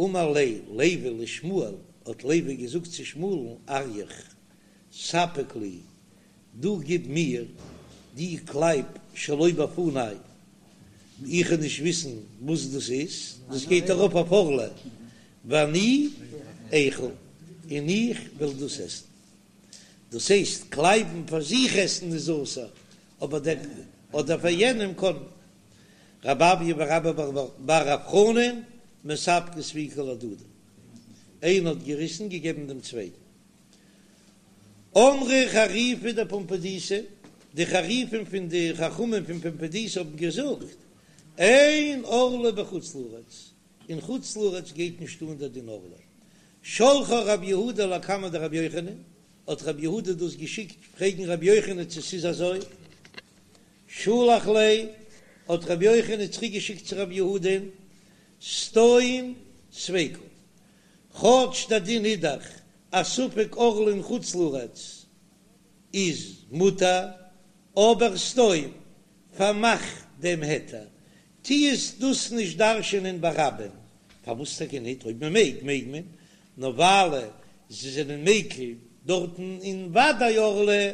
אמר ליה לוי לשמואל, האט לוי געזאגט צו שמואל'ן, אריך, ספק לי, דו גיב מיר דו קלייב שלא בפני, איך וועל נישט וויסן וואס דאס איז, דאס גייט ארויף אויף ערלה, ואני איכול, און איך וועל דאס עסן. דאס הייסט, קלייבן פאר זיך עסן איז אסור, אבער דער אדער פאר יענעם קען מען. רב אויא ורבה בר רב חנן מספקי ספיקא להדדי, איינער האט געריסן געגעבן דעם צווייטן. אמרי חריפי דפומבדיתא, די חריפים פון די חכמים פון פומבדיתא האבן געזאגט, אין ערלה בחוץ לארץ, אין חוץ לארץ גייט נישט אן דער דין ערלה. שלחה רב יהודה לקמיה דרבי יוחנן, האט רב יהודה דאס געשיקט פרעגן רבי יוחנן צו ס'איז אזוי. שלח ליה, האט רבי יוחנן צוריק געשיקט צו רב יהודה'ן, סתום ספיקא, כאטש דער דין איז דאך אז ספק ערלה אין חוץ לארץ איז מותר, אבער סתום, פארמאך דעם היתר, טו עס דאס נישט דרש'ענען ברבים, פארוואס טאקע ניט? אויב מען מעג, מעג מען, נאר ווייל זיי זענען מיקל דארטן אין ודאי ערלה,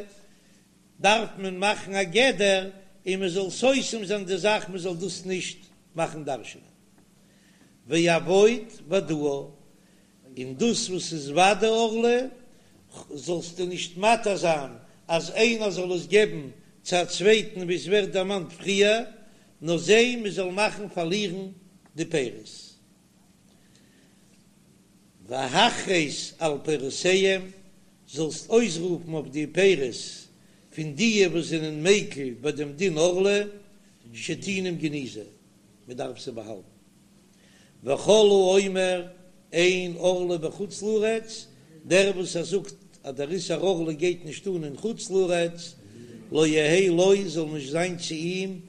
דארף מען מאכן א גדר און מען זאל סותם זיין די זאך מען זאל דאס נישט מאכן דרש'ענען. ועבוד ודאה, און דאס וואס איז ודאי ערלה זאלסטו נישט מתיר זיין אז איינער זאל עס געבן צו א צווייטן ווי עס ווערט דערמאנט פריער, נאר זע מען זאל מאכן פארלירן די פירות. והכרז על פירותיהם, זאלסט אויסרופן אויף די פירות פון דיע וואס זענען מיקל ביי דעם דין ערלה, שטעונים גניזה, מען דארף זיי באהאלטן. וכל האומר אין ערלה בחוץ לארץ, דער וואס ער זאגט אז דער איסור ערלה גייט נישט אן אין חוץ לארץ, לא יהא לו, זאל נישט זיין צו אים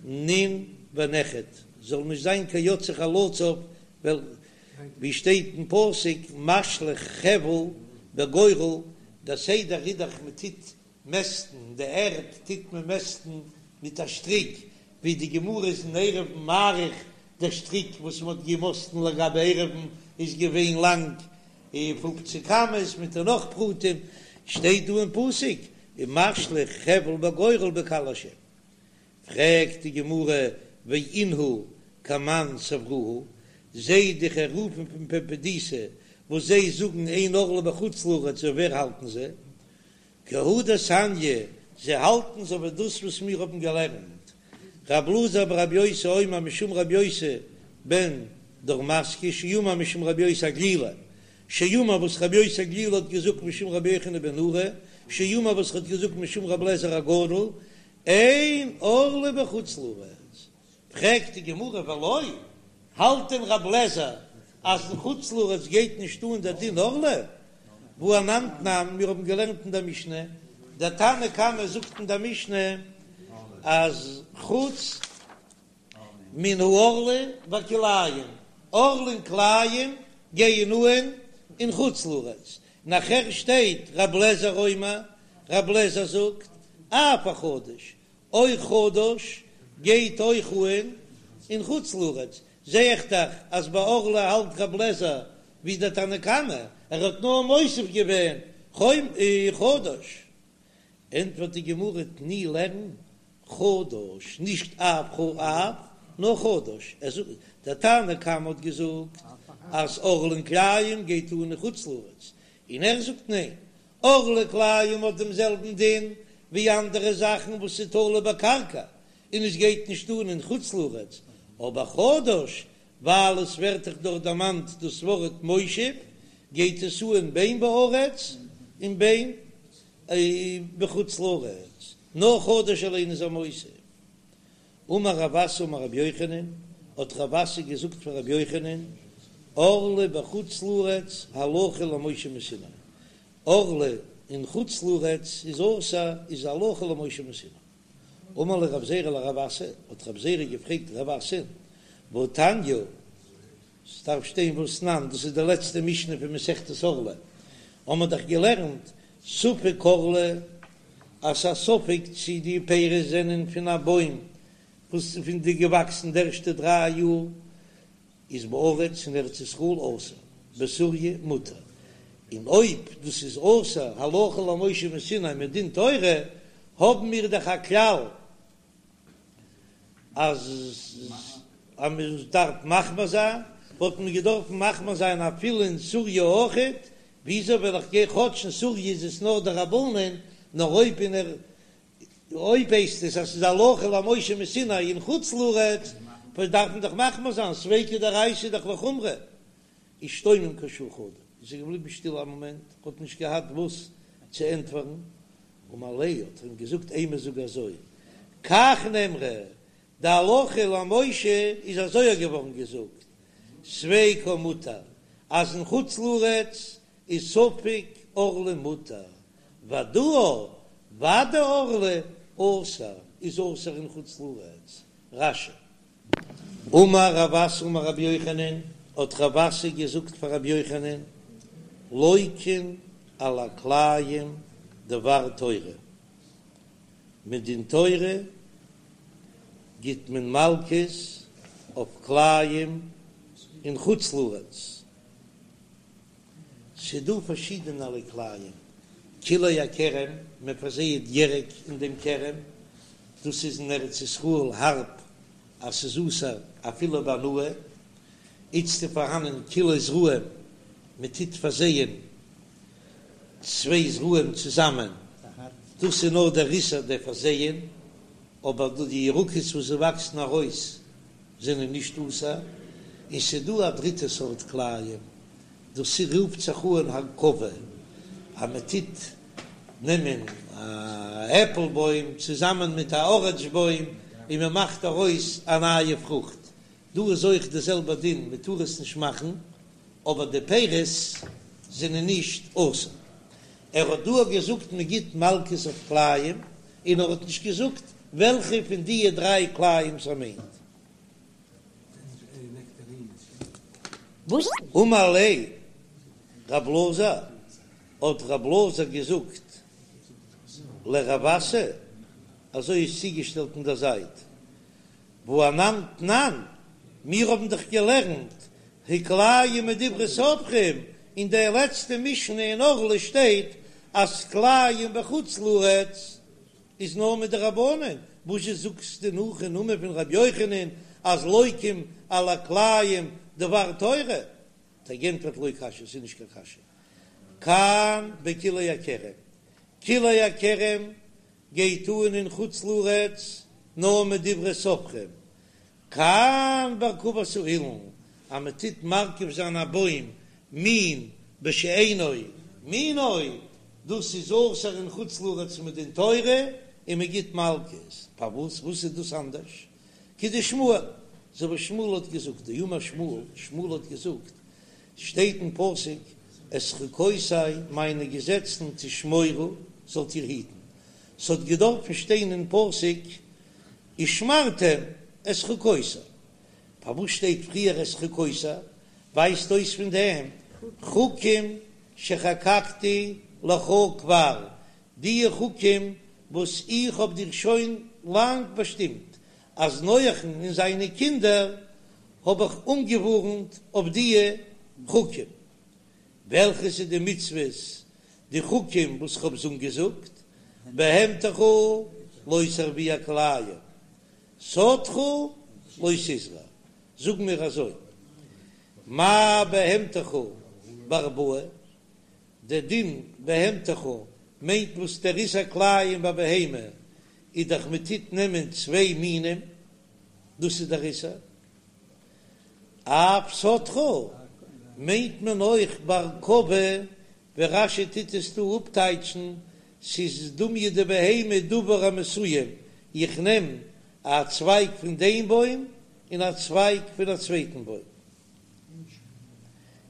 נין ונכד, זאל נישט זיין קיין יוצא חלציו, ווייל ווי שטייט אין פסוק משליך חבל בגורל, דער סדר איז דאך מען טוט מעסטן די ערד טוט מען מעסטן מיט א שטריק, ווי די גמרא איז אין עירובין מאריך, דער שטריק וואס מען האט געמאסטן לגבי עירובין איז געווען לאנג פופציג אמות מיט נאך פרטים, שטייט דא אין פסוק ומשליך חבל בגורל בקהל השם. פרעגט די גמרא ואינהו כמאן סברוה, זיי די חריפים פון פומבדיתא וואס זיי זאגן אין ערלה בחוץ לארץ ווי ווער האלטן זיי? כי הא דתניא, זיי האלטן אזוי ווי דאס וואס מיר האבן געלערנט, רב אלעזר ברבי יוסי אומר משום רבי יוסי בן דורמסקי שאמר משום רבי יוסי הגלילי, שאמר וואס רבי יוסי הגלילי האט געזאגט משום רבי יוחנן בן נורי, שאמר וואס האט געזאגט משום רבי אליעזר הגדול, אין ערלה בחוץ לארץ. פרעגט די גמרא ולא, האלט דען רב לעזער אז אין חוץ לארץ גייט נישט אן דער דין ערלה? והא אנן תנן, מיר האבן געלערנט אין דער משנה, דער תנא קמא זאגט אין דער משנה אז חוץ מן הערלה והכלאים, ערלה און כלאים גייען אן אין חוץ לארץ, נאכער שטייט רב לעזער אומר, רב לעזער זאגט אף החדש, אויך חדש גייט אויך אן אין חוץ לארץ, זע איך דאך אז ביי ערלה האלט רב לעזער ווי דער תנא קמא, ער האט נאר מוסיף געווען חדש. ענטפערט די גמרא תני לערן חדש, נישט אף אף, נאר חדש, ער זאגט דער תנא קמא האט געזאגט אז ערלה און כלאים גייט אן אין חוץ לארץ, און ער זאגט ניין, ערלה כלאים האט דעם זעלבן דין ווי אנדערע זאכן וואס איז תלוי בקרקע און עס גייט נישט אן אין חוץ לארץ, אבער חדש ווייל עס ווערט דאך דארט דערמאנט דאס ווארט מושב גייט עס אן בין בארץ און בין בחוץ לארץ, נאר חדש אליין איז ער מוסיף. אמר רב אסי אמר רבי יוחנן, האט רב אסי געזאגט פאר רבי יוחנן, ערלה בחוץ לארץ הלכה למשה מסיני, ערלה אין חוץ לארץ איז אסור איז הלכה למשה מסיני. אמר ליה רב זירא לרב אסי, האט רב זירא געפרעגט רב אסי, והתניא, ס'דארף שטיין והתנן, דאס איז די לעצטע משנה פון מסכת ערלה, האמער דאך געלערנט ספק ערלה, אז ס'איז א ספק צי די פירות זענען פון א בוים וואס איז פון די געוואקסן די ערשטע דריי יאר. איז בארץ אין ארץ ישראל אסור, בסוריא מותר, און אויב דאס איז אסור הלכה למשה מסיני מדין תורה, האבן מיר דאך א כלל אז אז מען דארף מחמיר זיין, וואלט מען געדארפן מחמיר זיין אפילו אין סוריא אויכעט, וויאזוי וועל איך גיין כאטש אין סוריא איז עס נאר דרבנן, נאר אויב אין ער אויב הייסט עס אז ס'איז הלכה למשה מסיני אין חוץ לארץ, וואס דארף מען דאך מחמיר זיין, ספיקא דאורייתא איז דאך לחומרא. אישתומם כשעה חדא, איז ער געבליבן שטיל א מאמענט, האט נישט געהאט וואס צו ענטפערן, אמר ליה האט ער אים געזאגט אימא זאג אזוי, כך נאמרה, די הלכה למשה איז אזוי געווארן געזאגט, ספיקו מותר, אז אין חוץ לארץ איז ספק ערלה מותר, ודאה ודאי ערלה אסור איז אסור אין חוץ לארץ, רש"י. אמר רב אסי אמר רבי יוחנן, האט רב אסי געזאגט פאר רבי יוחנן, לוקין על הכלאים דבר תורה, מדין תורה גיט מען מלקות אויף כלאים אין חוץ לארץ. ס'דא פארשידענערליי כלאים, כלאי הכרם, מען פארזייעט ירק אין דעם כרם, דאס איז אין ארץ ישראל הארב אז ס'איז אסור אפילו בהנאה, איצט איז פארהאנען כלאי זרעים, מען טוט פארזייען צוויי זרעים צוזאמען, דאס איז נאר דער איסור דער פארזייען, אבער די ירקות וואס זיי וואקסן ארויס זענען נישט אסור, און ס'דא א דריטע סארט כלאים, דאס רופט זיך אן הרכבה, אז מען טוט נעמען א עפל בוים צוזאמען מיט א אראנדזש בוים און מען מאכט ארויס א נייע פרוכט, דא איז אויך די זעלבע דין, מען טאר עס נישט מאכן, אבער די פירות זענען נישט אסור. ער האט דא געזאגט מען גיט מלקות אויף כלאים, און ער האט נישט געזאגט וועלכע פון דיע דריי כלאים ער מיינט. אמר ליה רב אלעזר, האט רב אלעזר געזאגט לרב אסי, אזוי איז צוגעשטעלט אין דער זייט, והא אנן תנן, מיר האבן דאך געלערנט הכלאים מדברי סופרים, אין דער לעצטע משנה אין ערלה שטייט אז כלאים בחוץ לארץ איז נאר מדרבנן, וואזשע זאגסטו נאך אין נאמען פון ר' יוחנן אז לוקים על הכלאים דבר תורה? האט ער גענטפערט לא קשיא, ס'איז נישט קיין קשיא, כאן בכלאי הכרם, כלאי הכרם גייט אן אין חוץ לארץ נאר מדברי סופרים, כאן בהרכבת האילן, אז מען טוט מרכיב זיין א בוים מין בשאינו מינו, דאס איז אסור אין חוץ לארץ מדין תורה, און מען גיט מלקות, פארוואס וואס איז דאס אנדערש? כדשמואל, אזוי ווי שמואל האט געזאגט, דאמר שמואל, שמואל האט געזאגט, שטייט אין פסוק, את חוקותי מיינע געזעצן תשמורו זאלט איר היטן, ס'האט געדארפן שטיין אין פסוק ושמרתם את חוקותי, פארוואס שטייט פריער את חוקותי? ווייזט אויס פון דעם חוקים שחקקתי לך כבר, די חוקים וואס איך האב דיר שוין לאנג באשטימט, אז נוח'ן און זיינע קינדער האב איך אנגעווארנט אויף די חוקים. וועלכע איז די מצוות, די חוקים וואס כ'האב זיי אנגעזאגט, בהמתך לא תרביע כלאים, שדך לא תזרע, זאג מיר אזוי, מה בהמתך בהרבעה, דער דין בהמתך מיינט וואס דער איסור כלאים ביי בהמה איז דאך מען טוט נעמען צוויי מינים, דאס איז דער איסור. אף שדך מיינט מען אויך בהרכבה, ווי רש"י טוט עס דא אפטייטשן, ס'איז דומיא דבהמה דבר המסוים, איך נעם א צווייג פון דעם בוים און א צווייג פון א צווייטן בוים.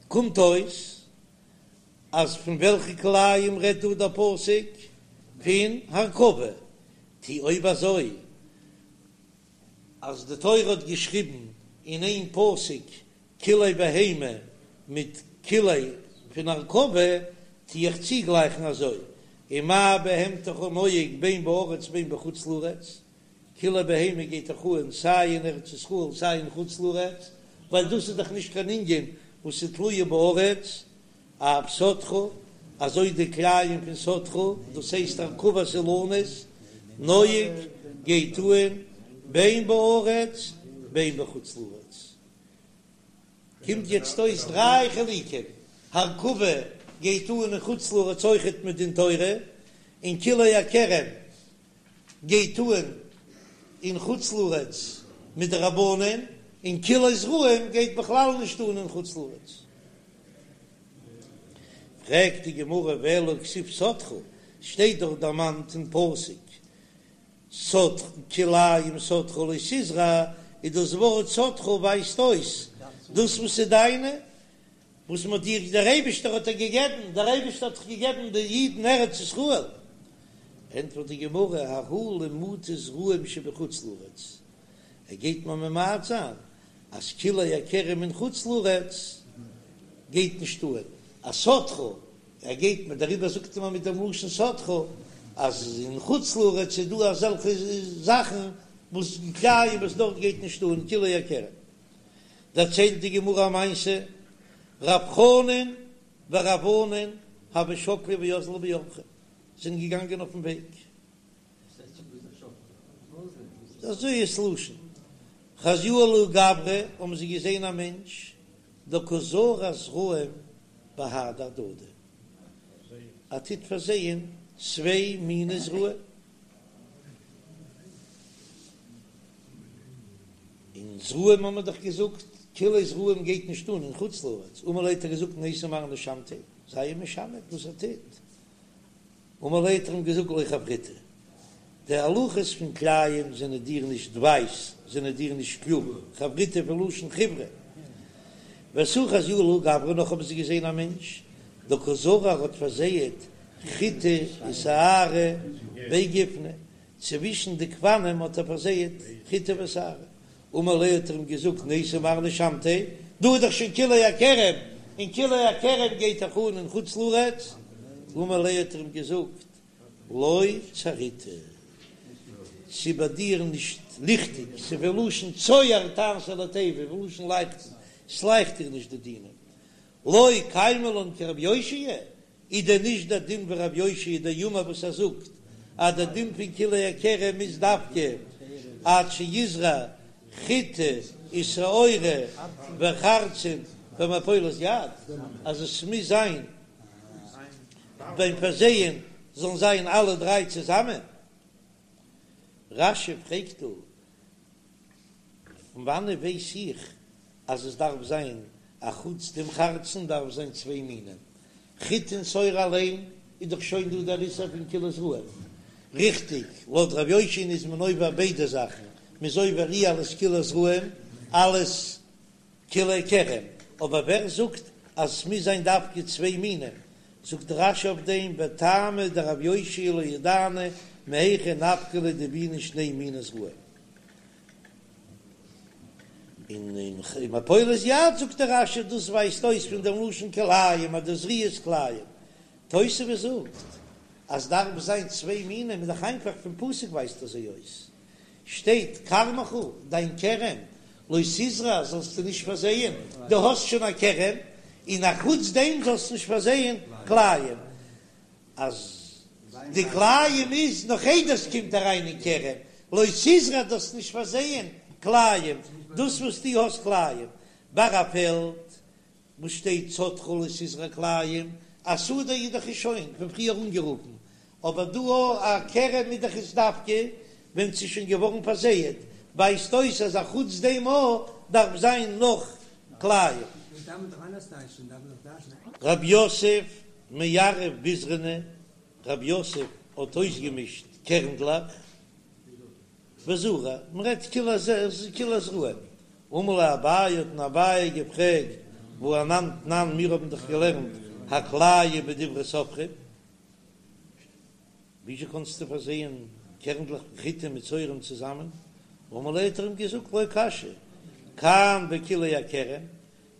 קומט אויס אז פון וועלכע כלאים רעדט דא דער פסוק? פון הרכבה. טא אויב אזוי אז די תורה האט געשריבן אין איין פסוק כלאי בהמה מיט כלאי פון הרכבה, טו איך צוגלייכן אזוי, ומה בהמתך נוהג בין בארץ בין בחוץ לארץ, כלאי בהמה גייט דאך אן סיי אין ארץ ישראל סיי אין חוץ לארץ, ווייל דאס איז דאך נישט קיין ענין וואס איז תלויה בארץ, אף שדך, אזוי די כלאים פון שדך, דאס הייסט הרכבת אילנות, נוהג, גייט אהן, בין בארץ בין בחוץ לארץ. קומט יעצט אויס דריי חילוקים, הרכבה גייט אהן אין חוץ לארץ אויכעט מדין תורה, און כלאי הכרם גייט אהן אין חוץ לארץ מדרבנן, און כלאי זרעים גייט בכלל נישט אהן אין חוץ לארץ. פרעגט די גמרא ואלא הכתיב שדך, שטייט דאך דערמאנט אין פסוק שדך כלאים שדך לא תזרע, איז דאס ווארט שדך ווייזט אויס דאס וואס איז דיינע, וואס מען האט דיר, דער אייבישטער האט דיר געגעבן, דער אייבישטער האט דאך געגעבן די אידן ארץ ישראל. ענטפערט די גמרא, ההוא למעוטי זרעים שבחוץ לארץ, ער גייט מיר ממעט זיין אז כלאי הכרם אין חוץ לארץ גייט נישט אהן, אז שדך, ער גייט מיר, דעריבער זאגט מען מיט דעם לשון שדך, אז אין חוץ לארץ איז דא אזעלכע זאכן וואס כלאים וואס דארט גייט נישט אהן כלאי הכרם. דערציילט די גמרא א מעשה, רב חנן ורב ענן הוו שקלי ואזלי באורחא, זענען געגאנגען אויפן וועג, אזוי איז לשון חזיוהו לההוא גברא, האבן זיי געזען א מענטש דקא זרע זרעים בהדי הדדי, ער טוט פארזייען צוויי מיני זרעים. און זרעים האבן מיר דאך געזאגט, כלאי זרעים גייט נישט אן אין חוץ לארץ, אמר ליה האט ער געזאגט ניתי מר נשמתיה, זיי אים משמת וואס ער טוט, אמר ליה האט ער אים געזאגט לא חבריתא, די הלכות פון כלאים זענען דיר נישט ווייס, זענען דיר נישט קלאר, חבריתא פון לשון חיברה. ותו חזיוהו לההוא גברא נאך האבן זיי געזען א מענטש, דקא זרע האט פארזייעט חיטי ושערי בי גופני, צווישן די גפנים האט ער פארזייעט חיטה ושערה, אמר ליה האט ער אים געזאגט ניתי מר נשמתיה, דא איז דאך שוין כלאי הכרם, און כלאי הכרם גייט דאך אן אין חוץ לארץ, אמר ליה האט ער אים געזאגט לא צהריתא, ס'איז ביי דיר נישט ליכטיג, ס'איז פון לשון צוהר תעשה לתיבה, פון לשון לייכטן, ס'לייכט דיר נישט די דינים, לא קיימא לן כרבי יאשיה, איז דען נישט דער דין ווי רבי יאשיה דאמר וואס ער זאגט אז דער דין פון כלאי הכרם איז דווקא עד שיזרע חיטה ושעורה וחרצן במפולת יד, אז עס מוז זיין ביים פארזייען זאלן זיין אלע דריי צוזאמען? רש"י פרעגט דא, פון וואנעט ווייס איך אז עס דארף זיין א חוץ דעם חרצן דארף זיין צוויי מינים, חיטה און שעורה אליין איז דאך שוין דא דער איסור פון כלאי זרעים, ריכטיג, לויט ר' יאשיה'ן איז מען עובר ביידע זאכן, מען איז עובר אי אלס כלאי זרעים אלס כלאי כרם, אבער ווער זאגט אז עס מוז זיין דווקא צוויי מינים? זאגט רש"י אויף דעם וטעמא דרב יאשיה לא ידענא מהיכא נפקא ליה דבעינן שני מיני זרעים. און אין מפולת יד זאגט דער רש"י דאס ווייזט אויס פון דעם לשון כלאים אז די זריעה איז כלאים. תוספות זאגט אז דארף זיין צוויי מינים איז דאך איינפאך פון פסוק ווייזט אזוי אויס שטייט כרמך דיין כרם לא תזרע זאלסטו נישט פארזייען דו האסט שוין א כרם און א חוץ דעם זאלסטו נישט פארזייען כלאים. אז די כלאים איז נאך איידער ס'קומט אריין אין כרם, לא תזרע דארפסט נישט פארזייען כלאים, דאס וואס דו האסט כלאים ביי א פעלד וואס שטייט שדך לא תזרע כלאים, א שדה איז דאך שוין פון פריער אנגערופן, אבער דא א כרם איז דאך עס דווקא ווען ס'איז שוין געווארן פארזייעט, ווייזט אויס אז א חוץ דעם אויך דארף זיין נאך כלאים. רב יוסף מערב ביזרני, רב יוסף האט אויסגעמישט קערנדלעך וזרע, מען רעדט כלאי זרעים, אמר ליה אביי האט אים אביי געפרעגט והא אנן תנן מיר האבן דאך געלערנט הכלאים בדברי סופרים, וויאזוי קאנסטו פארזייען קערנדלעך פון חיטה מיט שעורים צוזאמען? אמר ליה האט ער אים געזאגט לא קשיא, כאן בכלאי הכרם,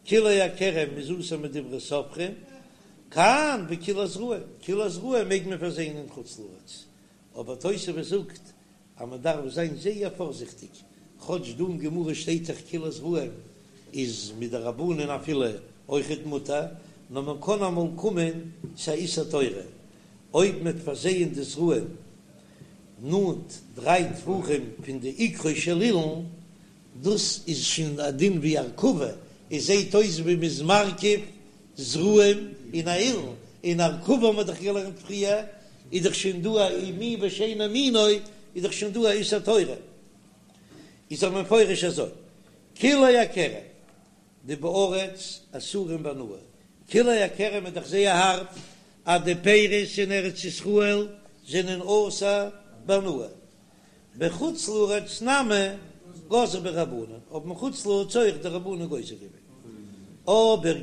כלאי הכרם איז אסור מדברי סופרים, כאן בכלאי זרעים, כלאי זרעים מעג מען פארזייען אין חוץ לארץ, אבער תוספות זאגט אז מען דארף זיין זייער פארזיכטיג, כאטש דא אין גמרא שטייט דאך כלאי זרעים. איז מדרבנן אפילו אויכעט מותר, נאר מען קען אמאל קומען צו א איסור תורה אויב מ'וועט פארזייען די זרעים נאנט דריי טפחים פון די עיקרו של אילן, דאס איז שוין א דין ווי הרכבה, עס זעט אויס ווי מ'איז מרכיב זרעים אין א אילן, און הרכבה האבן מיר דאך געלערנט פריער, איז דאך שוין דא א מין בשאינו מינו, איז דאך שוין דא א איסור תורה. איז דאך מפורש אזוי, כלאי הכרם דבארץ אסורים בהנאה, כלאי הכרם איז דאך זייער הארב אז די פירות אין ארץ ישראל זענען אסור בהנאה, בחוץ לארץ נמי גזרו בהו רבנן, האבן אין חוץ לארץ אויך די רבנן גוזר געווען, אבער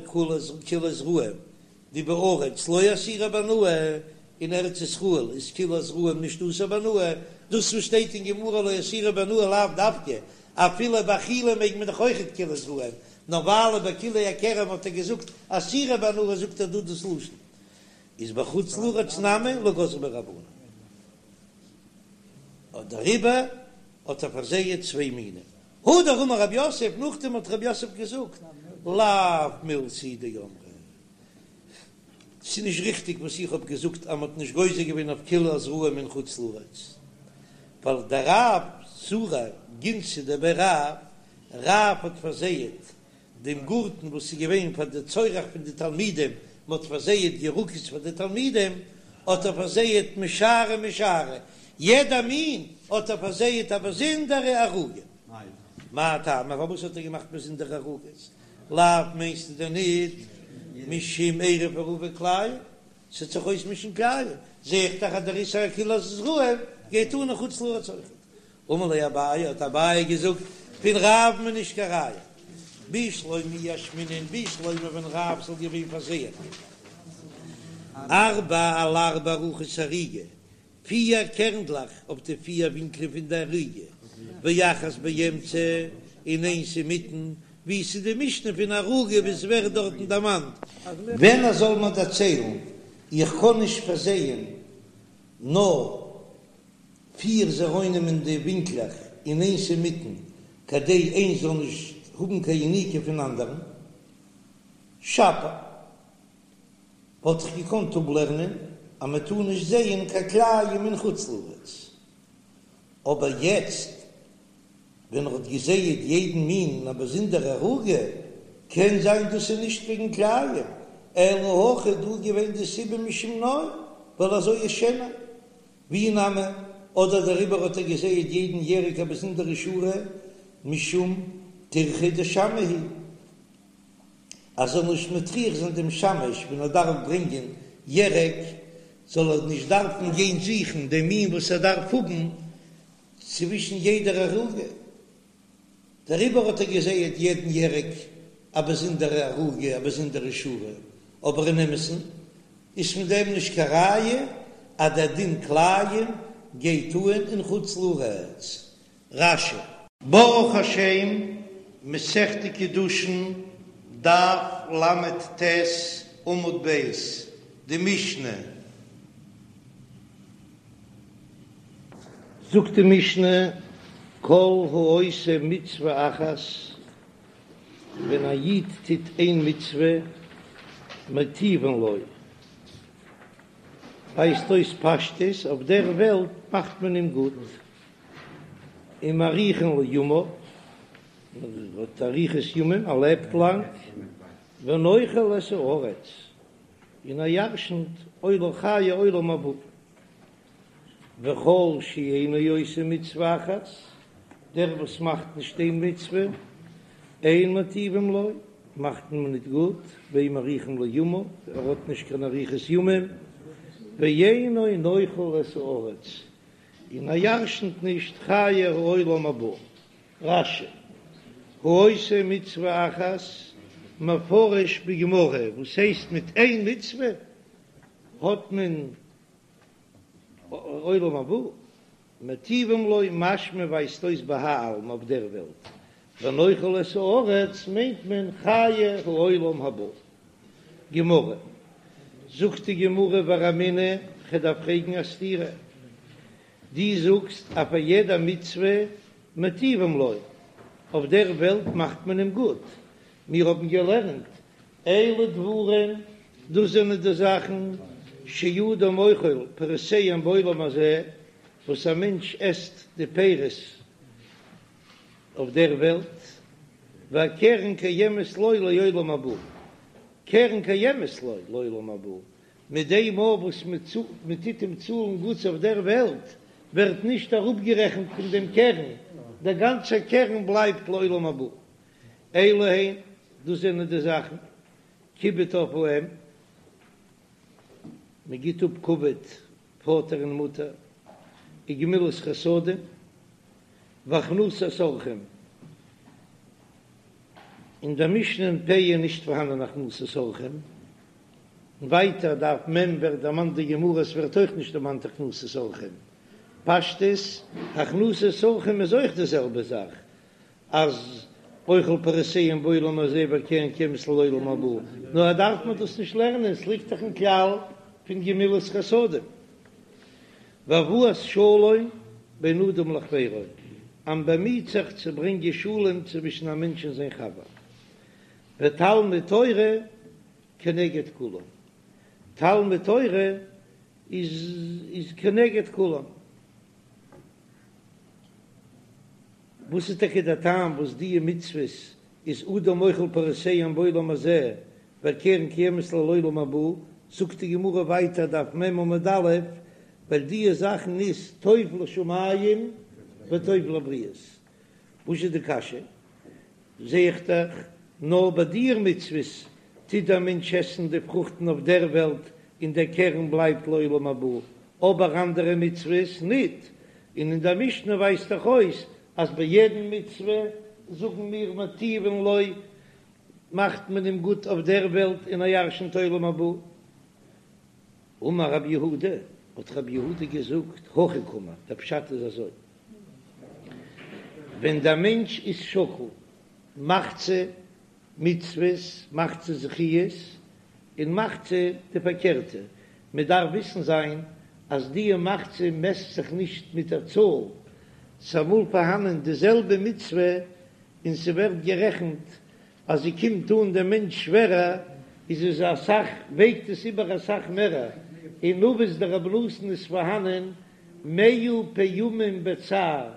כלאי זרעים דבארץ לא אסירי בהנאה, אין ארץ ישראל איז כלאי זרעים נישט אסור בהנאה, דאס וואס שטייט אין גמרא לא אסירי בהנאה לאו דווקא, אפילו באכילה מעג מען דאך אויכעט כלאי זרעים, נאר ווייל ביי כלאי הכרם האט ער געזאגט אסירי בהנאה זאגט ער דא דאס לשון איז בחוץ לארץ נמי לא גזרו בהו רבנן. דעריבער האט ער פארזייט צוויי מינים. הדר אמר רב יוסף, נאכדעם האט רב יוסף געזאגט, לאו מילתא היא דאמרי, ס'איז נישט ריכטיג וואס איך האב געזאגט אז מ'האט נישט גוזר געווען אויף כלאי זרעים אין חוץ לארץ, ווייל דרב זרע גינתא דבי רב, רב האט פארזייט דעם גארטן וואס איז געווען פאר די צורך פון די תלמידים, מען האט פארזייעט ירקות פאר די תלמידים, האט ער פארזייעט משארי משארי, יעדע מין האט ער פארזייעט א באזונדערע ערוגה. מאי טעמא, פארוואס האט ער געמאכט באזונדערע ערוגות? לאו מיינסטו דען ניט משום עירוב עירובי כלאים, ס'וועט זיך אויסמישן כלאים, זע איך דאך אז דער איסור כלאי זרעים גייט אן אין חוץ לארץ אויכעט. אמר ליה אביי, האט אביי געזאגט, פון רב'ן איז נישט קיין ראיה. בשלמא אי אשמעינן, בשלמא ווען רב זאל געווען פארזייען ארבע על ארבע רוחות הערוגה, פיר קערנדלעך אויף די פיר ווינקלען פון די ערוגה, ואחת באמצע, און איינס אינמיטן, ווי עס איז די משנה פון ערוגה ווי עס ווערט דארטן דערמאנט. ווען ער זאל מיר דערציילן, איך קען נישט פארזייען נאר פיר זרעונים אין די ווינקלעך און איינס אינמיטן, כדי איינס זאל נישט האבן קיין יניקה פון אנדערן. שפיר, וואלט איך געקאנט אפלערנען אז מען טאר נישט זייען קיין כלאים אין חוץ לארץ, אבער יעצט ווען ער האט געזייעט יעדן מין אין א באזונדערע ערוגה, קען זיין דאס איז נישט וועגן כלאים, אלא הכא דא געווען די סיבה משום נוי, ווייל אזוי איז שענער. ואי נמי, אדער דעריבער האט ער געזייעט יעדן ירק א באזונדערע שורה, משום טירחא דשמעא היא, אז ער זאל נישט מטריח זיין דעם שמש ווען ער דארף ברענגען ירק, זאל ער נישט דארפן גיין זוכן דעם מין וואס ער דארף האבן צווישן יעדער ערוגה. דעריבער האט ער געזייעט יעדן ירק א באזונדערע ערוגה, א באזונדערע שורה, אבער אין אמת'ן איז פון דעם נישט קיין ראיה אז דער דין כלאים גייט אהן אין חוץ לארץ. רש"י. ברוך השם, מסכת קידושין, דף ל"ט, עמוד ב', די משנה. זאגט די משנה, כל העושה מצוה אחת, ווען א איד טוט איין מצוה, מטיבין לו, ווייזט אויס פשטות, אויף דער וועלט מאכט מען אים גוט, ומאריכין לו ימיו, ער האט אריכות ימים, ער לעבט לאנג, ונוחל את הארץ, און ער ירשנט עולם חיי עולם הבא. וכל שאינו עושה מצוה אחת, דער וואס מאכט נישט איין מצוה, אין מטיבים לו, מאכט מען ניט גוט, ואין מאריכין לו ימיו, ער האט נישט קיין אריכות ימים, ואינו נוחל את הארץ, און ער ירשנט נישט חיי העולם הבא. רש"י, העושה מצוה אחת, מפרש בגמרא, וואס הייסט מיט איין מצוה האט מען עולם הבא, מטיבים לו משמע ווייזט אויס בהאי עלמא אויף דער וועלט, ונוחל את הארץ מיינט מען חיי העולם הבא. גמרא, זאגט די גמרא ורמינהו, כ'דארף פרעגן א סתירה, דו זאגסט אז פאר יעדע מצוה מטיבים לו, אויף דער וועלט מאכט מען אים גוט. מיר האבן געלערנט אלו דברים, דאס זענען די זאכן שאדם אוכל פירותיהם בעולם הזה, וואס א מענטש עסט די פירות אויף דער וועלט, והקרן קיימת לו לעולם הבא, קרן קיימת לו לעולם הבא, מיט דעם מאל וואס מען טוט אים צאלן גוטס אויף דער וועלט, ווערט נישט אראפגערעכנט פון דעם קרן, דער גאנצער קרן בלייבט לעולם הבא. אלו הן, דאס זענען די זאכן, כיבוד אב ואם, מען גיט אפ כבוד פאטער און מוטער, וגמילות חסדים, והכנסת אורחים, אין דער משנה אין פאה איז נישט פארהאנען הכנסת אורחים, און ווייטער דף מ' ווערט דערמאנט די גמרא עס ווערט אויך נישט דערמאנט הכנסת אורחים, פשטות הכנסת אורחים איז אויך די זעלבע זאך אז אוכל פירותיהם בעולם הזה והקרן קיימת לעולם הבא, נאר דארף מען דאס נישט לערנען עס ליגט דאך אין כלל פון גמילות חסדים. והבאת שלום בין אדם לחבירו, אז מען באמיט זיך צו ברענגען שלום צווישן א מענטש און זיין חבר, ותלמוד תורה כנגד כולם, תלמוד תורה איז כנגד כולם. וואס איז טאקע דער טעם וואס דיע מצוות איז אדם אוכל פירותיהם בעולם הזה והקרן קיימת לו לעולם הבא, זאגט די גמרא ווייטער דף מ עמוד א', ווייל דיע זאכן איז טוב לשמים וטוב לבריות. וואס איז די קשיא? זע איך דאך נאר ביי דיע מצוות טוט דער מענטש עסן די פרוכטן אויף דער וועלט און דער קרן בלייבט לעולם הבא, אבער אנדערע מצוות ניט, און אין דער משנה ווייזט דאך אויס אז ביי יעדן מצוה זאגן מיר מטיבין לו מאכט מען אים גוט אויף דער וועלט און ער ירשנט עולם הבא. אמר רב יהודה, האט רב יהודה געזאגט, הכי קאמר, דער פשט איז אזוי, ווען דער מענטש איז שקול מחצה מצוות, מחצה זכיות, און מחצה די פארקערטע, מען דארף וויסן זיין אז דיע מחצה מעסט זיך נישט מיט דער צאל, ס'אמאל פארהאנען די זעלבע מצוה און ס'ווערט גערעכנט אז זי קומט אן דעם מענטש שווערער, איז עס אסאך, וועגט עס איבער אסאך מערער, אין אבות דרבי נתן איז פארהאנען מאה פעמים בצער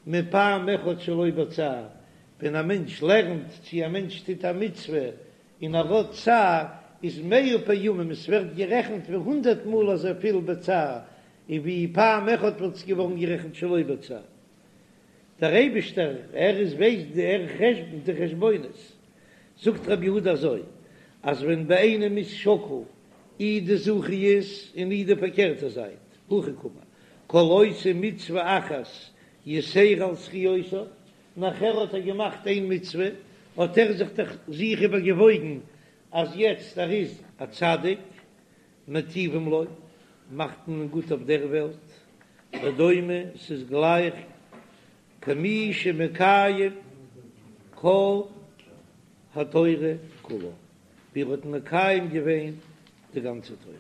מפעם אחד שלא בצער, ווען א מענטש לערנט צי א מענטש טוט א מצוה און ער האט צער, איז מאה פעמים, עס ווערט גערעכנט ווי הונדערט מאל אזויפיל בצער, און ווי פעם אחד וואלט עס געווארן גערעכנט שלא בצער. דער אייבישטער ער איז ווייסט די ער חשבונ'ט די חשבונות, זאגט רבי יהודה אזוי, אז ווען ביי איינעם איז שקול אי די זכיות און אי די פארקערטע זייט, הכי קאמר, כל עושה מצוה אחת יתירה על זכיותיו, נאכער האט ער געמאכט איין מצוה, האט ער זיך דאך זיך איבערגעוואויגן אז יעצט ער איז א צדיק, מטיבים לו, מאכט מען אים גוט אויף דער וועלט, ודומה, ס'איז גלייך כמי שמקיים כל התורה כולה, ווי ער האט מקיים געווען די גאנצע תורה.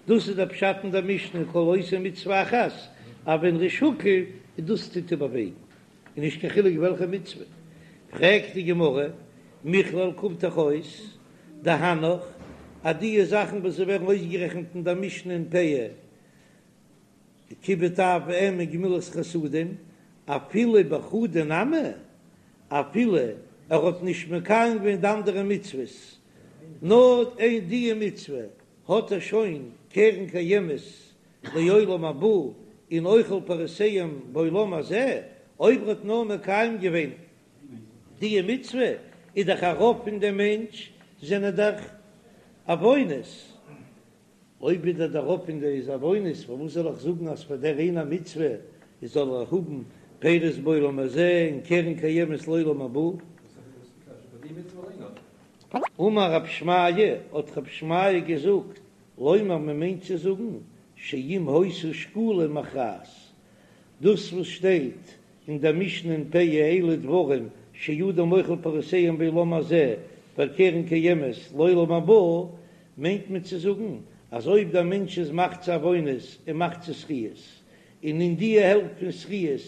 דאס איז דער פשט אין דער משנה כל עושה מצוה אחת, אז ווען ר'איז שקול איז דאס טוט איבערוועגן, און נישט קיין חילוק וועלכע מצוה. פרעגט די גמרא, מכלל קומט דאך אויס דהנך אז דיע זאכן וואס זיי ווערן אויסגערעכנט אין דער משנה אין פאה, כיבוד אב ואם און גמילות חסדים, אפילו בחדא נמי, אפילו ער האט נישט מקיים געווען די אנדערע מצוות, נאר אין דיע מצוה האט ער שוין קרן קיימת לעולם הבא און אוכל פירותיהם בעולם הזה, אויב ער האט נאר מקיים געווען דיע מצוה, איז דאך א רוב פון דעם מענטש זענען דאך עוונות, אויב איז דער רוב פון די איז עוונות, פארוואס זאל איך זאגן אז פאר דער איינער מצוה איז זאל ער האבן פירות בעולם הזה און קרן קיימת לעולם הבא? אמר רב שמעיה, האט רב שמעיה געזאגט, לומר מען מיינט צו זאגן, שאם היתה שקולה מכרעת, דאס וואס שטייט אין דער משנה אין פאה אלו דברים שאדם אוכל פירותיהם בעולם הזה והקרן קיימת לעולם הבא, מיינט מען צו זאגן אז אויב דער מענטש איז מחצה עוונות און מחצה זכיות, און אין די העלפט פון זכיות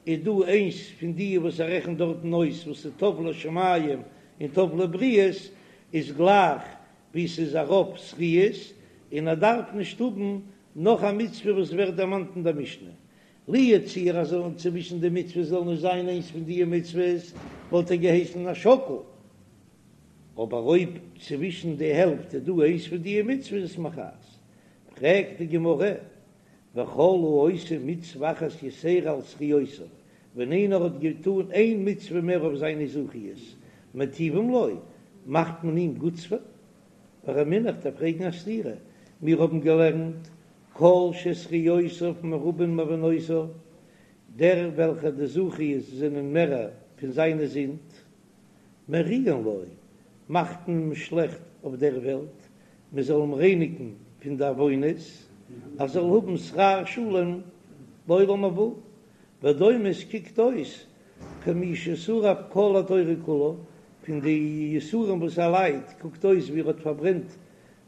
איז דא איינס פון די וואס ער רעכנט דארטן אויס וואס איז טוב לשמים. און טוב לבריות איז גלייך ווי ס'איז א רוב זכיות, און ער דארף נישט האבן נאך א מצוה וואס ווערט דערמאנט אין דער משנה. לו יצוייר אז זאלן צווישן די מצוות זאל נישט זיין איינס פון די מצוות וואלט ער געהייסן א שקול, אבער אויב צווישן די העלפט איז דא איינס פון די מצוות איז מכרעת. פרעגט די גמרא, וכל העושה מצוה אחת יתירה על זכיותיו, ווען איינער האט געטאן איין מצוה מער אויף זיינע זכיות, מטיבים לו, מאכט מען אים גוטס ורמינהו, כ'דארף פרעגן א סתירה, מיר האבן געלערנט כל שזכיותיו מרובין מעוונותיו, דער וועלכער די זכיות זענען מערער פון זיינע זינד, מריעין לו, מאכט מען אים שלעכט אויף דער וועלט, מען זאל אים רייניגן פון די עוונות, ער זאל האבן שכר שלם לעולם הבא, ודומה עס קוקט אויס כמי ששרף כל התורה כולה, פון די יסורים וואס ער ליידט קוקט אויס ווי ער האט פארברענט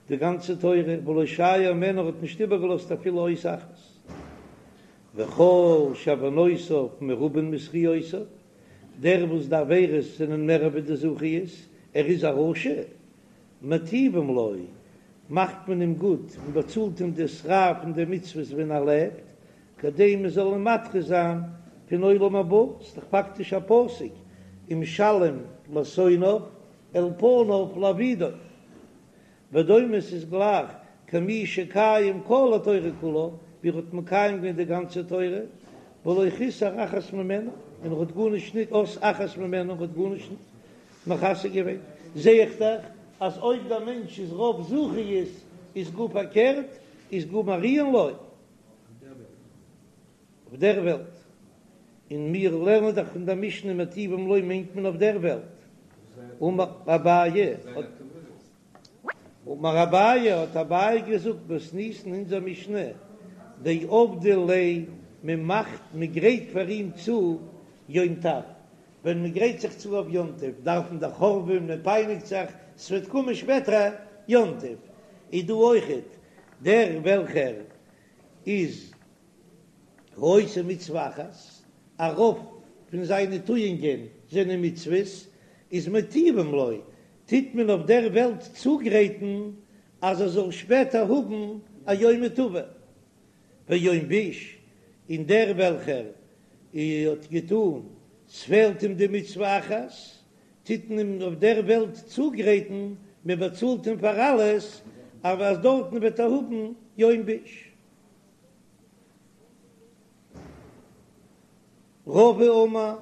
די גאנצע תורה, ולא שייר ממנה ער האט נישט איבערגעלאזט אפילו אות אחת. וכל שעוונותיו מרובין מזכיותיו, דער וואס די עבירות זענען מער ווי די זכיות, ער איז א רשע, מטיבים לו, מאכט מען אים גוט און באצאלט אים די שכר פון די מצוות ווען ער לעבט, כדי מען זאל אים מדחה זיין פון עולם הבא, ס'איז דאך פאקטיש א פסוק, ומשלם לשונאיו אל פניו להאבידו. ודומה ס'איז גלייך כמי שקיים כל התורה כולה, ווי ער האט מקיים געווען די גאנצע תורה, ולא חיסר אחת ממנה, און ער האט גארנישט ניט אות אחת ממנה, ער האט גארנישט ניט מחסר געווען. זע איך דאך אז אויב דער מענטש איז רוב זכיות איז גאר פארקערט, איז גאר מריעין לו. אויף דער וועלט, און מיר לערנען דאך פון דער משנה מטיבים לו מיינט מען אויף דער וועלט, אמר אביי, אמר אביי, האט אביי געזאגט מתניתין אונזער משנה, דעבדי ליה, מען מאכט, מען גרייט פאר אים צו יום טב, ווען מען גרייט זיך צו אויף יום טוב דארף מען דאך הארעווען, מען פייניגט זיך, ס'וועט קומען שפעטער יום טוב, איז דא אויכעט דער וועלכער איז העושה מצוה אחת, א רוב פון זיינע טואונגען זענען מצוות, איז מטיבים לו, טוט מען אויף דער וועלט צוגרייטן אז ער זאל שפעטער האבן א יומא טבא. ויום ביש, און דער וועלכער האט געטאן, ס'פעלט אים די מצוה אחת, טוט מען אים אויף דער וועלט צוגרייטן, מען באצאלט אים פאר אלעס, אבער אז דארטן וועט ער האבן יום ביש. רבא אמר,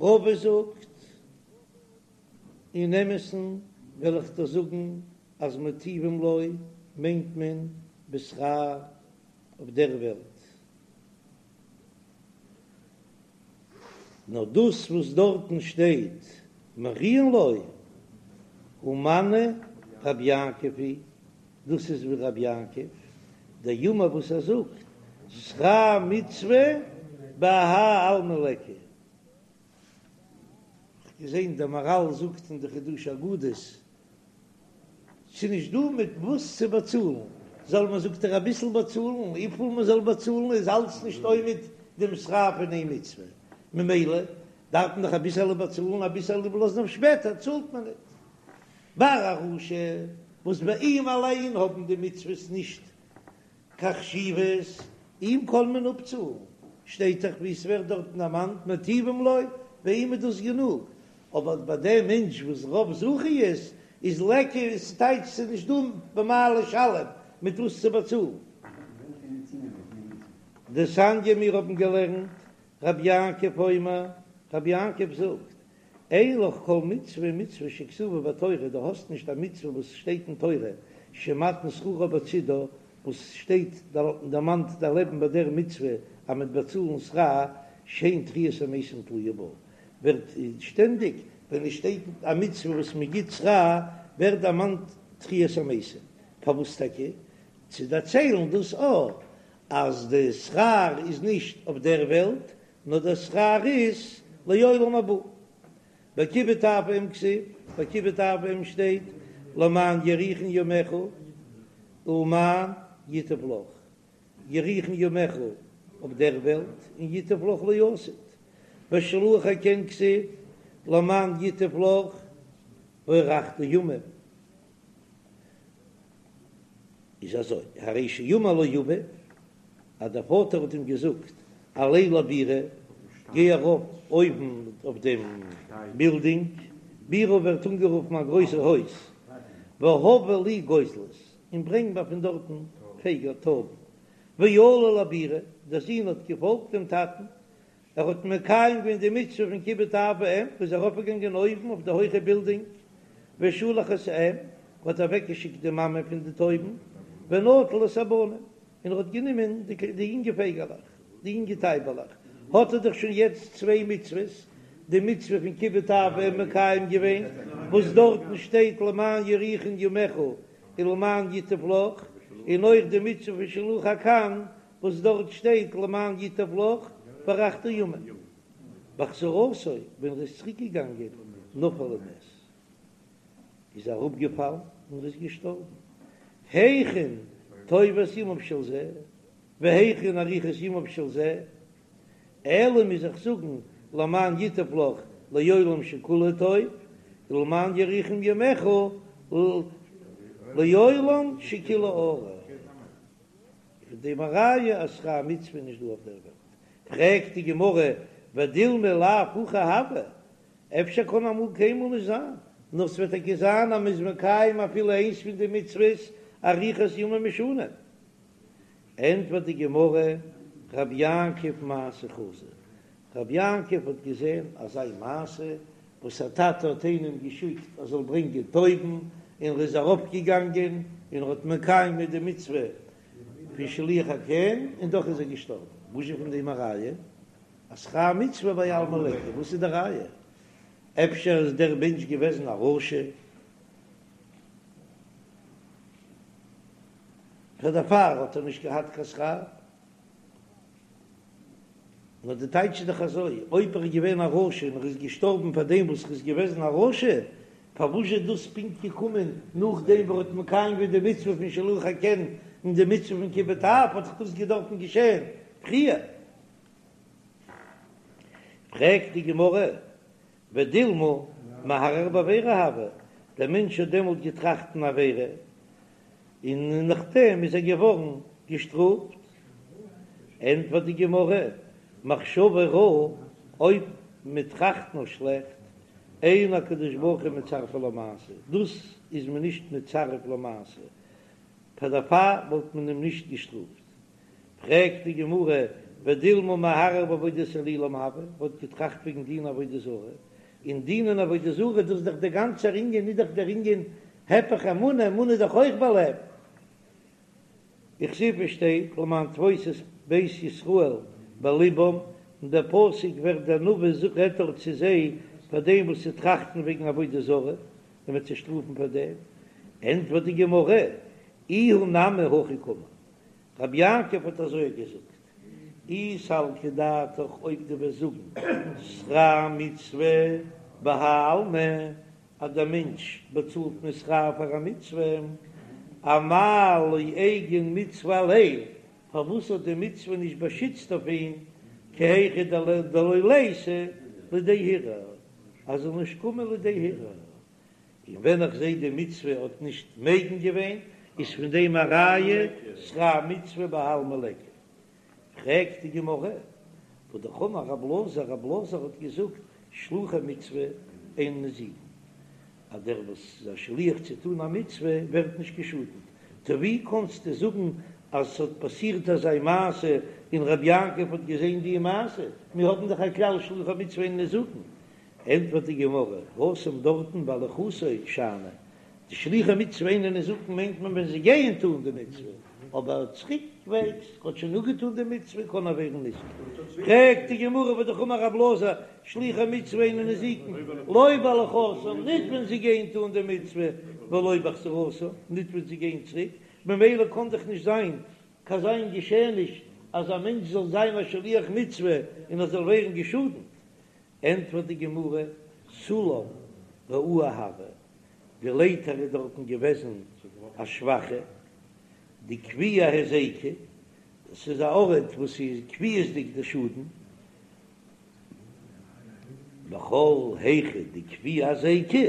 רבא זאגט, אין אמת'ן וועל איך דיר זאגן אז מטיבים לו מיינט מען בשכר אויף דער וועלט, נאר דאס וואס דארטן שטייט מריעין לו הא מני רבי יעקב היא, דאס איז ווי רבי יעקב דאמר וואס ער זאגט שכר מצוה בהאי עלמא ליכא. כ'האב געזען דער מהר"ל זאגט אין די חידושי אגדות, ס'איז נישט דא מיט וואס צו באצאלן, זאל מען זאגט ער אביסל באצאלן, וויפיל מען זאל באצאלן איז אלץ נישט עומד דעם שכר פון איין מצוה, ממילא דארף מען דאך אביסעלע באצאלן, אביסעלע איבערלאזן אויף שפעטער צאלט מען ניט. ביי א רשע וואס ביי אים אליין האבן די מצוות נישט קיין חשיבות, אים קען מען אפצאלן, שטייט דאך ווי עס ווערט דארטן דערמאנט מטיבים לו, ביי אים איז דאס גענוג, אבער ביי דעם מענטש וואס רוב זכיות איז ליכא, איז טייטש ס'איז נישט דא במה לשלם, מיט וואס צו באצאלן. דתניא מיר האבן געלערנט, רבי יעקב אומר, רבי יעקב זאגט, אין לך כל מצוה ומצוה שכתובה בתורה, דו האסט נישט א מצוה וואס שטייט אין תורה, שמתן שכרה בצידה, וואס שטייט דערמאנט דערלעבן ביי דער מצוה אז מ'וועט באצאלן שכר, שאין תחיית המתים תלויה בה, ווערט שטענדיג ווען עס שטייט א מצוה וואס מען גיט שכר ווערט דערמאנט תחיית המתים, פארוואס טאקע? צו דערציילן דאס א אז די שכר איז נישט אויף דער וועלט, נאר דער שכר איז לעולם הבא. בכיבוד אב ואם כתיב, ביי כיבוד אב ואם שטייט למען יאריכון ימיך ולמען ייטב לך, יאריכון ימיך אויף דער וועלט און ייטב לך לעתיד, בשילוח הקן כתיב למען ייטב לך. והארכת ימים. איז אזוי, הרי שאמר לו אביו, אז דער פאטער האט אים געזאגט, עלה לבירה, גיי ארויף אויבן אויף דעם בילדינג, בירה ווערט אנגערופן א גרויסער הויז, והבא לי גוזלות, און ברענג מיר פון דארטן פייגל, טויבן, ועלה לבירה, דער זון האט געפאלגט דעם טאטן, ער האט מקיים געווען די מצוה פון כיבוד אב ואם, איז ארויפגעגאנגען אויבן אויף די הויכע בילדינג, ושלח את האם, האט אוועקגעשיקט די מאמע פון די טויבן, ונטל את הבנים, און ער האט גענומען די יונגע פייגעלעך, די יונגע טייבעלעך, האט ער דאך שוין יעצט צוויי מצוות, די מצוה פון כיבוד אב ואם מקיים געווען, וואס דארטן שטייט למען יאריכון ימיך ולמען ייטב לך, און אויך די מצוה פון שילוח הקן, וואס דארט שטייט למען ייטב לך והארכת ימים. בחזרתו, ווען ער איז צוריק געגאנגען, נפל ומת, איז ער אראפגעפאלן און ער איז געשטארבן. היכן טובת ימיו של זה, והיכן אריכות ימיו של זה, אלא מוז איך זאגן למען ייטב לך לעולם שכולו טוב, ולמען יאריכון ימיך לעולם שכולו ארוך. פון דעם א ראיה אז שכר מצוה איז נישט דא אויף דער וועלט. פרעגט די גמרא, ודילמא לאו הכי הוה, אפשר קען אמאל קיינמאל נישט זיין, נאר ס'וועט טאקע זיין אז מ'איז מקיים אפילו איינס פון די מצוות אריכות ימים ושנים. ענטפערט די גמרא, רב יעקב מעשה חזא, רב יעקב האט געזען אזא מעשה וואס א טאטע האט איינעם געשיקט ער זאל ברענגען טויבן, און ער איז ארויפגעגאנגען און ער האט מקיים געווען די מצוה פון שילוח הקן, און דאך איז ער געשטארבן. וואס איז פון דעם א ראיה אז שכר מצוה בהאי עלמא ליכא? וואס איז די ראיה? אפשר איז דער מענטש געוועזן א רשע, פאר דערפאר האט ער נישט געהאט קיין שכר? נאר די טייטש איז דאך אזוי, אויב ער איז געווען א רשע און ער איז געשטארבן פאר דעם וואס ער איז געוועזן א רשע, פארוואס איז דאס פונקט געקומען נאכדעם וואס ער האט מקיים געווען די מצוה פון שילוח הקן און די מצוה פון כיבוד אב, האט דאך דאס געדארפן געשען פריער? פרעגט די גמרא, ודילמא מהרהר בעבירה הוה, דער מענטש האט דעמאלט געטראכט אן עבירה, און נאכדעם איז ער געווארן געשטראפט. ענטפערט די גמרא, מחשבה רעה, אויב מען טראכט נאר שלעכט, אין הקדוש ברוך הוא מצרפה למעשה, דאס איז מען נישט מצרף למעשה, פאר דערפאר וואלט מען אים נישט געשטראפט. פרעגט די גמרא, ודילמא מהרהר בעבודת אלילים הוה, האט געטראכט וועגן דינען עבודה זרה, און דינען עבודה זרה דאס איז דאך דער גאנצער ענין, איז דאך דער ענין היפך אמונה, אמונה איז דאך אויך בלב. וכתיב, עס שטייט למען תפוש את בית ישראל בלבם, און דער פסוק ווערט דער נביא רעדט דארט צו זיי פאר דעם וואס זיי טראכטן וועגן עבודה זרה, און מ'וועט זיי שטראפן פאר דעם, ענטפערט די גמרא, איהו נמי הכי קאמר, רבי יעקב האט אזוי געזאגט, אי סלקא דעתך אויב דו וועסט זאגן שכר מצוה בהאי עלמא אז דער מענטש באצאלט מען שכר פאר א מצוה, אמאי לא איגן מצוה עליה, פארוואס האט די מצוה נישט באשיצט אויף אים, כי היכי דלא ליתי לידי הרהור, אז ער זאל נישט קומען לידי הרהור. און ווען איך זעה די מצוה האט נישט מגין געווען, איז פון דעם א ראיה שכר מצוה בהאי עלמא ליכא. פרעגט די גמרא, והא דאך אמר רב אלעזר, רב אלעזר האט געזאגט שלוחי מצוה אין ניזוקין, אז דער וואס איז א שליח צו טון א מצוה ווערט נישט געשאדנט, טא ווי קאנסטו זאגן אז ס'האט פאסירט אזא מעשה און רבי יעקב האט געזען די מעשה, מיר האבן דאך א כלל שלוחי מצוה אין ניזוקין, ענטפערט די גמרא, התם דארטן בהליכתו שאני, די שלוחי מצוה אינן ניזוקין מיינט מען ווען זיי גייען טון די מצוה, אבער צוריקוועגס האט שוין אפגעטון די מצוה קען ער ווערן ניזוק. פרעגט די גמרא והא דאך אמר רב אלעזר, שלוחי מצוה אינן ניזוקין, לא בהליכתן, ניט ווען זיי גייען טון די מצוה, ולא בחזרתן, ניט ווען זיי גייען צוריק, ממילא קען דאך נישט זיין קיין אזא געשעעניש אז א מענטש זאל זיין א שליח מצוה און ער זאל ווערן געשאדנט, ענטפערט די גמרא, סולם רעוע הוה, די לייטער איז דארטן געוועזן א שוואכע, דקביע היזיקא, עס איז א ארט וואס איז קביעות'דיג די שאדן, וכל היכא דקביע היזיקא.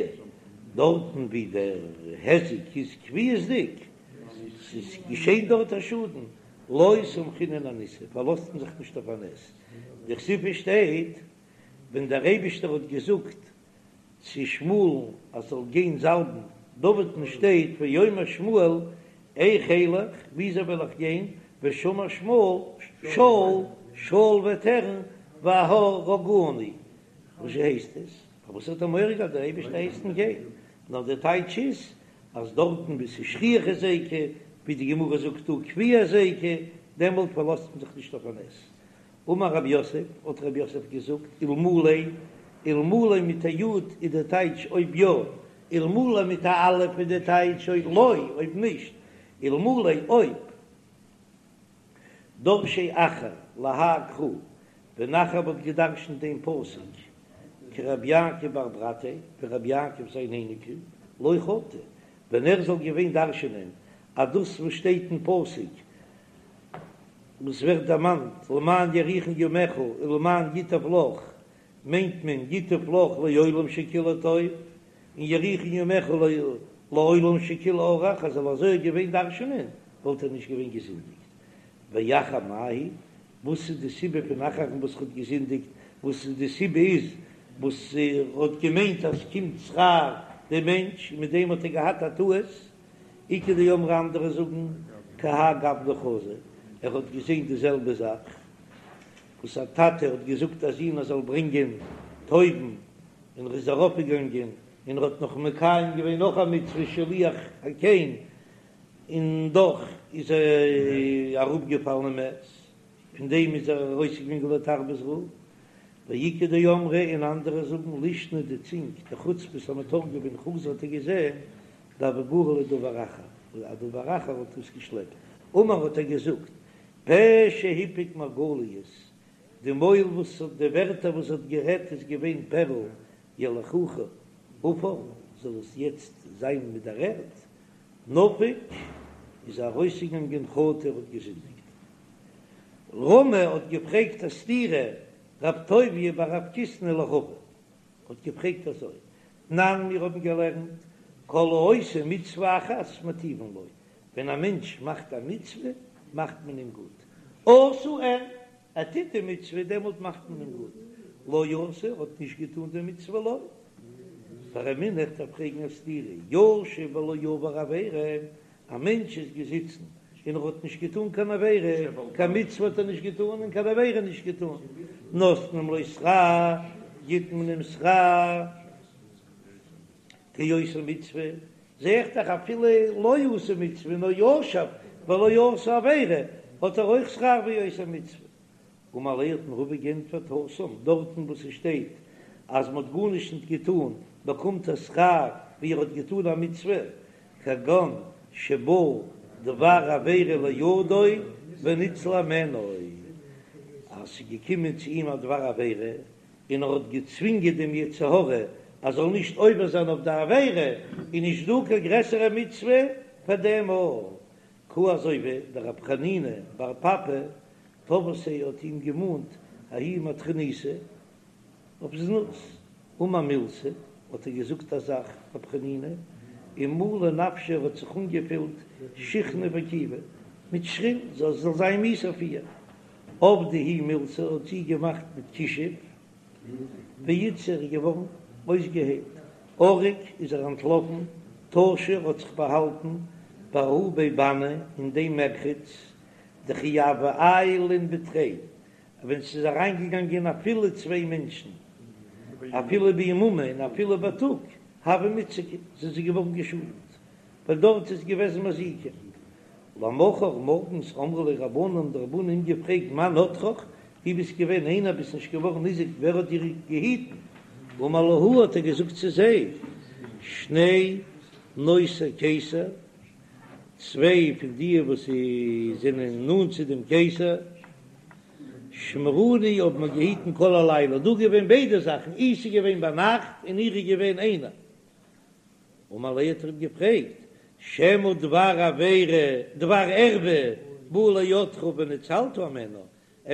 דארטן ווי דער היזק איז קביעות'דיג, ס'איז געשען דארט א שאדן, לא סמכינן אניסא, פארלאזט מען זיך נישט אויף א נס, דכתיב ס'שטייט ווען דער אייבישטער האט געזאגט צו שמואל'ן אז זאל גיין זאלבן דוד'ן שטייט ויאמר שמואל איך אלך, וויאזוי וועל איך גיין, ושמע שמואל שאול, שאול וועט הערן והרגני, וואס הייסט עס? פארוואס האט ער מורא געהאט דער אייבערשטער הייסט אים גיין? נאר דער טייטש איז אז דארטן וואו ס'איז שכיח היזיקא, ווי די גמרא זאגט דא קביע היזיקא, דעמאלט פארלאזט מען זיך נישט אויף א נס. אמר רב יוסף, האט רב יוסף געזאגט, אלמלי, אלמלי מיט א י' איז דער טייטש אויב יא, אלמלא מיט א א' איז דער טייטש אויב לא, אויב נישט, אלמלי אויב. דרשיה אחר להאי קרא, ווען אחר וואלט געדרשנט דעם פסוק כרבי יעקב בר ברתיה, ווי רבי יעקב זיין אייניקל, לא חטא, ווען ער זאל געווען דרשנען אז דאס וואס שטייט אין פסוק וואס ווערט דערמאנט למען יאריכון ימיך ולמען ייטב לך מיינט מען ייטב לך לעולם שכולו טוב, און יאריכון ימיך לעולם שכולו ארוך, אז ער זאל אזוי געווען דרשנען וואלט ער נישט געווען געזינדיגט. ואחר מאי היא, וואס איז די סיבה פון אחר'ן וואס האט געזינדיגט, וואס איז די סיבה איז וואס ער האט געמיינט אז ס'קומט שכר דעם מענטש און מיט דעם האט ער געהאט א טעות, איכא דאמרי אנדערע זאגן כי האי גוונא חזא, ער האט געזען די זעלבע זאך וואס א טאטע האט געזאגט א זון ער זאל ברענגען טויבן און ער איז ארויפגעגאנגען און ער האט נאך מקיים געווען נאך א מצוה שילוח הקן און דאך איז ער אראפגעפאלן און מת, פון דעם איז ער ארויסגעגאנגען לתרבות רעה, ואיכא דאמרי און אנדערע זאגן לישנא די צינג דחוצפית המתורגמן חזא האט ער געזען דהוה גרי ליה דבר אחר, א דבר אחר האט דאס געשלעפט, אמר האט ער געזאגט פה שהפיק מרגליות, די מויל וואס האט די ווערטער וואס האט גערעדט איז געווען פערל יליכוה עפר, זאל עס יעצט זיין מיט דער ערד, נפק איז ארויסגעגאנגען חטא ער האט געזינדיגט. רמי האט געפרעגט א סתירה רב טוביה בר רב קיסנא לרבא האט געפרעגט אזוי, תנן מיר האבן געלערנט כל העושה מצוה אחת מטיבין לו, ווען א מענטש מאכט א מצוה מאכט מען אים גוט, עשה אין, ער טוט די מצוה דעמאלט מאכט מען אים גוט, לא עשה האט נישט געטאן די מצוה לא. ורמינהו איך דארף פרעגן א סתירה, ישב ולא עבר עבירה, א מענטש איז געזיצן און ער האט נישט געטאן קיין עבירה, קיין מצוה האט ער נישט געטאן און קיין עבירה נישט געטאן, נותנים לו שכר, גיט מען אים שכר כעושה מצוה, זע איך דאך אפילו לא עשה מצוה נאר ישב ולא עשה עבירה האט ער אויך שכר ווי עושה מצוה. אמר ליה האט אים רבא געענטפערט התם, דארטן וואס עס שטייט אז מען האט גארנישט ניט געטאן באקומט ער שכר ווי ער האט געטאן א מצוה, כגון שבא דבר עבירה לידו וניצל הימנו, אז ס'איז געקומען צו אים א דבר עבירה און ער האט געצווינגען דעם יצר הרע אז זאל נישט עובר זיין אויף די עבירה, איז נישט דא קיין גרעסערע מצוה פאר דעם אויך, כי הא אזוי ווי דרב חנינא בר פפא תבעתיה האט אים געמאנט ההיא מטרוניתא אויף זנות, אמר מילתא האט ער געזאגט א זאך רב חנינא ומלא נפשיה האט זיך אנגעפילט שיחנא וכיבא מיט שחין זאל זאל זיין מיאוס אויף איר, עבדה היא מילתא האט זי געמאכט מיט כישוף ואיתסי איז געווארן אויסגעהיילט, ערק איז ער אנטלאפן, טשא האט זיך באהאלטן בההוא בי בני אין דעם מרחץ דכי הוו עיילין בתרי, ווען ס'איז אריינגעגאנגען אפילו צוויי מענטשן אפילו ביממא און אפילו בייטאג הוו מיתזקי זענען זיי געווארן געשאדנט ווייל דארט איז געוועזן מזיקים. למחר מארגנס אמרו ליה רבנן האבן די רבנן אים געפרעגט מאן נטרך דו ביסט געווען איינער ביסט נישט געווארן ניזוק ווער האט דיר געהיטן? אמר להו האט ער געזאגט צו זיי שני נושאי קיסר צוויי פון די וואס זענען נאנט צו דעם קיסר שמרוני האבן מיר געהיטן כל הלילה דא געווען ביידע זאכן אי ס'איז געווען ביינאכט און איך איז געווען איינער אמר ליה האט ער אים געפרעגט, שמא דבר עבירה, דבר ערווה בא לידך וניצלת הימנה,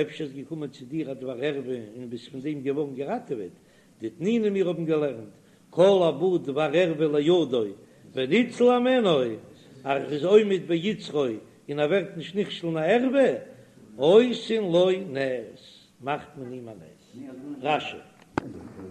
אפשר איז געקומען צו דיר א דבר ערווה און ביסט פון דעם געווארן געראטעוועט, דתנינא מיר האבן געלערנט, כל הבא דבר ערווה לידו וניצל הימנו, אז ער איז עומד ביצרו און ער ווערט נישט נכשל אין א ערווה, עושין לו נס, מאכט מען אים א נס. רש"י.